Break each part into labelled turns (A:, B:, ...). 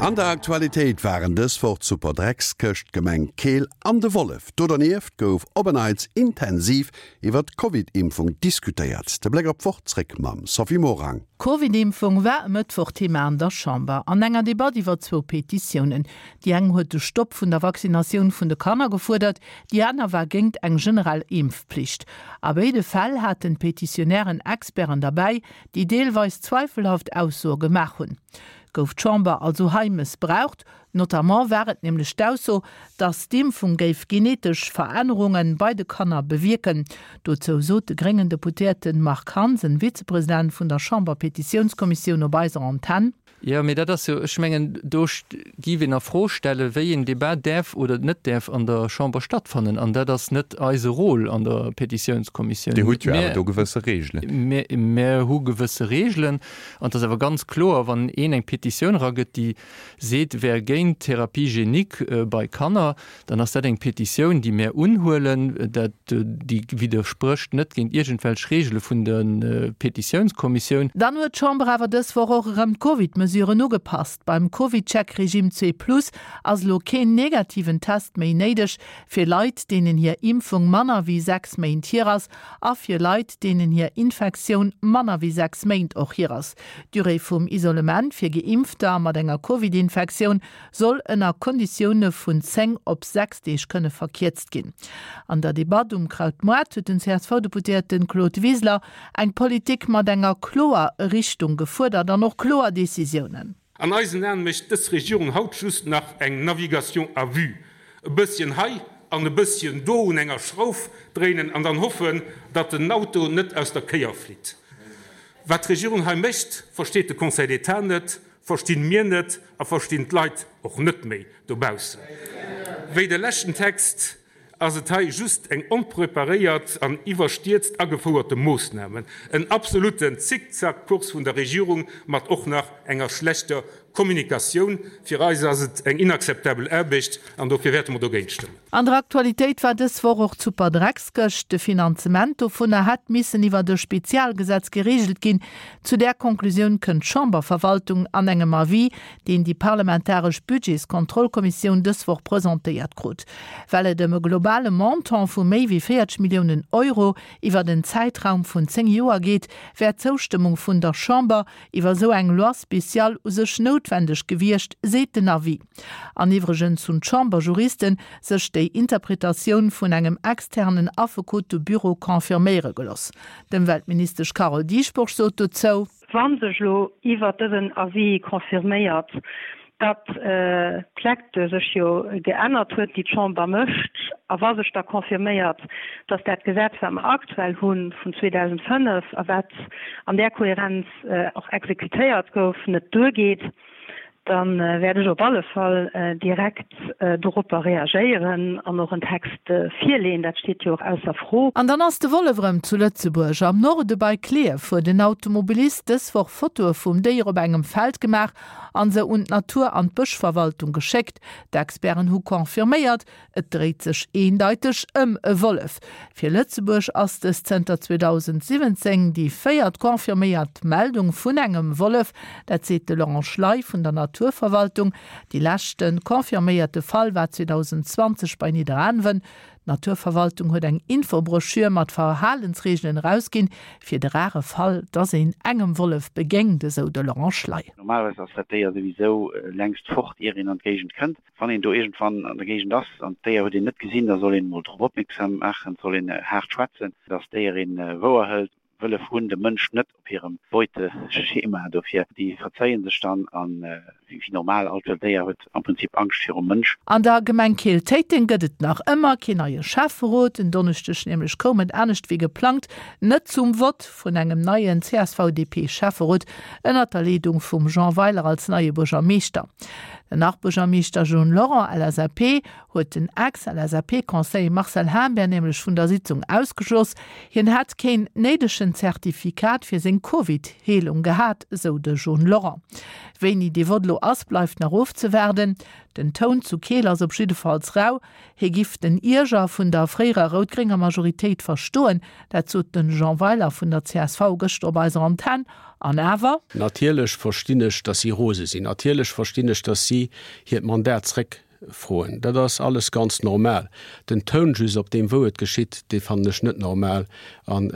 A: An der Aktualitéit waren dës Woch d'Superdreckskëscht, d'Gemeng Keel an de Wollef. Do dernieft gouf op en Neits intensiv iwwer d'Covid-Impfung diskutéiert. De Bléck op d'Woch zréck mam Sophie Morang.
B: D'Covid-Impfung war e Mëttwoch Thema an der Chamber. An enger Debatt iwwer zwou Petitiounen. Déi eng huet de Stopp vun der Vaccinatioun vun de Kanner gefuerdert, déi aner war géingt eng generell Impfpflicht. A béide Fäll haten d'Petitionnairen Experten derbäi, déi deelweis zweifelhaft Aussoe gemaach hunn. Gouf d'Chamber also hei mëssbraucht? Notamment war et nämlech d'Ausso, datt d'Impfung géif genetesch Verännerunge bei de Kanner bewierken. Dozou sot de gréngen Deputéierte Marc Hansen, Vizepresident vun der Chamber-Petitiounskommissioun op eiser Antenn.
C: Jo, mee dat ass jo, ech mengen, do géif een a Fro stellen, wéi een Debat däerf oder net däerf an der Chamber stattfannen. An dat ass net eise Rôle an der Petitiounskommissioun.
D: Dir hutt jo awer do gewësse Reegelen.
C: Mir hu gewësse Reegelen. An et ass awer ganz kloer, wann een eng Petitioun eragëtt, déi seet, wär géint d'Thérapie génique bei Kanner, dann ass dat eng Petitioun, déi mär unhuelen. Dat, déi widdersprécht net géint iergendwelch Reegele vun der Petitiounskommissioun.
B: Dann huet d'Chamber awer dës Woch och erëm d'Covid-Mesuren ugepasst. Beim CovidCheck-Regime zwee plus ass elo keen negativen Test méi néideg fir Leit, deenen hir Impfung manner wéi 6 Méint hier ass a fir Leit, deenen hir Infektioun manner wéi 6 Méint och hier ass. D'Durée vum Isolement fir Geimpfter mat enger Covid-Infektioun soll ënner Konditioune vun 10 op 6 Deeg kënne verkierzt ginn. An der Debatt um Krautmoart huet den CSV-Deputéierte Claude Wiseler eng Politik mat enger kloer Richtung gefuerdert an och kloer Decisiounen.
E: An eisen Aen mécht dës Regierung haut just nach eng Navigation à vue, e bësschen hei an e bësschen do un enger Schrauf dréinen an dann hoffen, datt den Auto net aus der Kéier flitt. Wat d'Regierung hei mécht, versteet de Conseil d'État net, verstinn mir net a verstinn d'Leit och net méi dobaussen. Wéi de leschten Text ass et hei just eng onpreparéiert an iwwerstierzt agefouerte Moossname, en absoluten Zickzackkurs vun der Regierung mat och nach enger schlechter Kommunikatioun. Fir eis ass et eng inakzeptabel Aarbecht an dofir wäerte mer dogéint stëmmen.
B: An der Aktualitéit war dës Woch och d'Superdreckskëscht. De Finanzement dovunner hätt missen iwwert e Spezialgesetz gereegelt ginn. Zu där Konklusioun kënnt d'Chamberverwaltung an engem Avis, deen déi parlamentaresch Budgetskontrollkommissioun dës Woch presentéiert krut. Well et ëm e globale Montant vu méi wéi 40 Milliounen Euro iwwert en Zäitraum vun 10 Joer geet, wär d'Zoustëmmung vun der Chamber iwwer esou eng Loi spéciale u sech noutwendeg gewiescht, seet den Avis. An iwwregens hunn d'Chamberjuriste sech déi Interpretatioun vun engem externen Affekotebüro confirméiere geloss. D'Ëmweltministesch Carole Dieschbourg sot dozou.
F: Wa sech elo iwwert dësen Avis confirméiert, datt d'Lecture sech jo geännert huet, déi d'Chamber mécht, a wa sech da confirméiert, datt dat Gesetz, wat mer aktuell hu vun 2005 a wat an där Kohärenz och exekutéiert gouf, net duergeet, Da wäert ech op alle Fall direkt doropper reagéieren an och en Text virleeën. Dat steet jo och ausser Fro.
B: An dann ass de Wollef erëm zu Lëtzebuerg. Am Norde bei Klierf huet en Automobilist dës Woch Fotoe vum Déier op engem Feld gemaach an se un d'Natur an d'Bëschverwaltung geschéckt. D'Experten hu confirméiert, Et dréit sech eendeiteg ëm e Wollef. Fir Lëtzebuerg ass dës zënter 2017 déi véiert confirméiert Meldung vun engem Wollef. Dat seet de Laurent Schley vun der Naturverwaltung. Déi leschte confirméierte Fall war 2020 bei Nidderaanwen. D'Naturverwaltung huet eng Infobroschür mat Verhalensreegelen erausginn, fir de rare Fall, dass een engem Wollef begéint, esou de Laurent Schley.
G: Normalerweis ass dat Déier souwisou längst fort, ier een an d'Géigend kënnt. Wann een do iergendwann an der Géigend ass an d'Déier huet een net gesinn, da soll een emol drop opmierksam maachen, et soll een haart schwätzen, dass d'Déier een wouer hëlt. Wëllef hunn de Mënsch net op hirem Beuteschema, dofir déi verzéien sech dann an wéi normal, all wëllt Déier huet am Prinzip Angscht virum Mënsch.
B: An der Gemeng Keel-Téiteng gëtt et nach ëmmer keen neie Schäfferot. En Donneschdeg nämlech koum et anescht wéi geplangt net zum Vott vun engem neien CSV-DP-Schäfferot ënnert der Leedung vum Jean Weiler als neie Buergermeeschter. Den Nach-Buergermeeschter John Lorent, LSAP, huet den Ex-LSAP-Conseiller Marcel Humbert nämlech vun der Sitzung ausgeschloss. Hien hätt keen néidegen Zertifikat fir seng Covid-Heelung gehat, esou de John Lorent. Wéini dee Vott elo ass, bleift nach ofzewaarden. Den Toun zu Keel ass op jiddefalls rau. Hie giff den Ierger vun der fréierer rout-grénger Majoritéit verstoen, dat sot de Jean Weiler vun der csv gëschter op eiser Antenn. An awer.
H: Natierlech verstinn ech, datt si rose sinn. Natierlech verstinn ech, datt si hiert Mandat zréck froen. Dat ass alles ganz normal. Den Toun just, op deem wou et geschitt, dee fannen ech net normal. An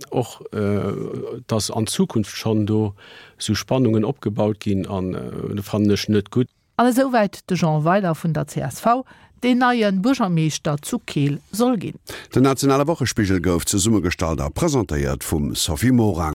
H: och, datt an Zukunft schonn do esou Spannungen opgebaut ginn, an fannen ech net gutt.
B: An esouwäit de Jean Weiler vun der csv, deen neie Buergermeeschter zu Keel soll ginn.
A: Den nationale Wochespigel gouf zesummegestallt a presentéiert vum Sophie Morang.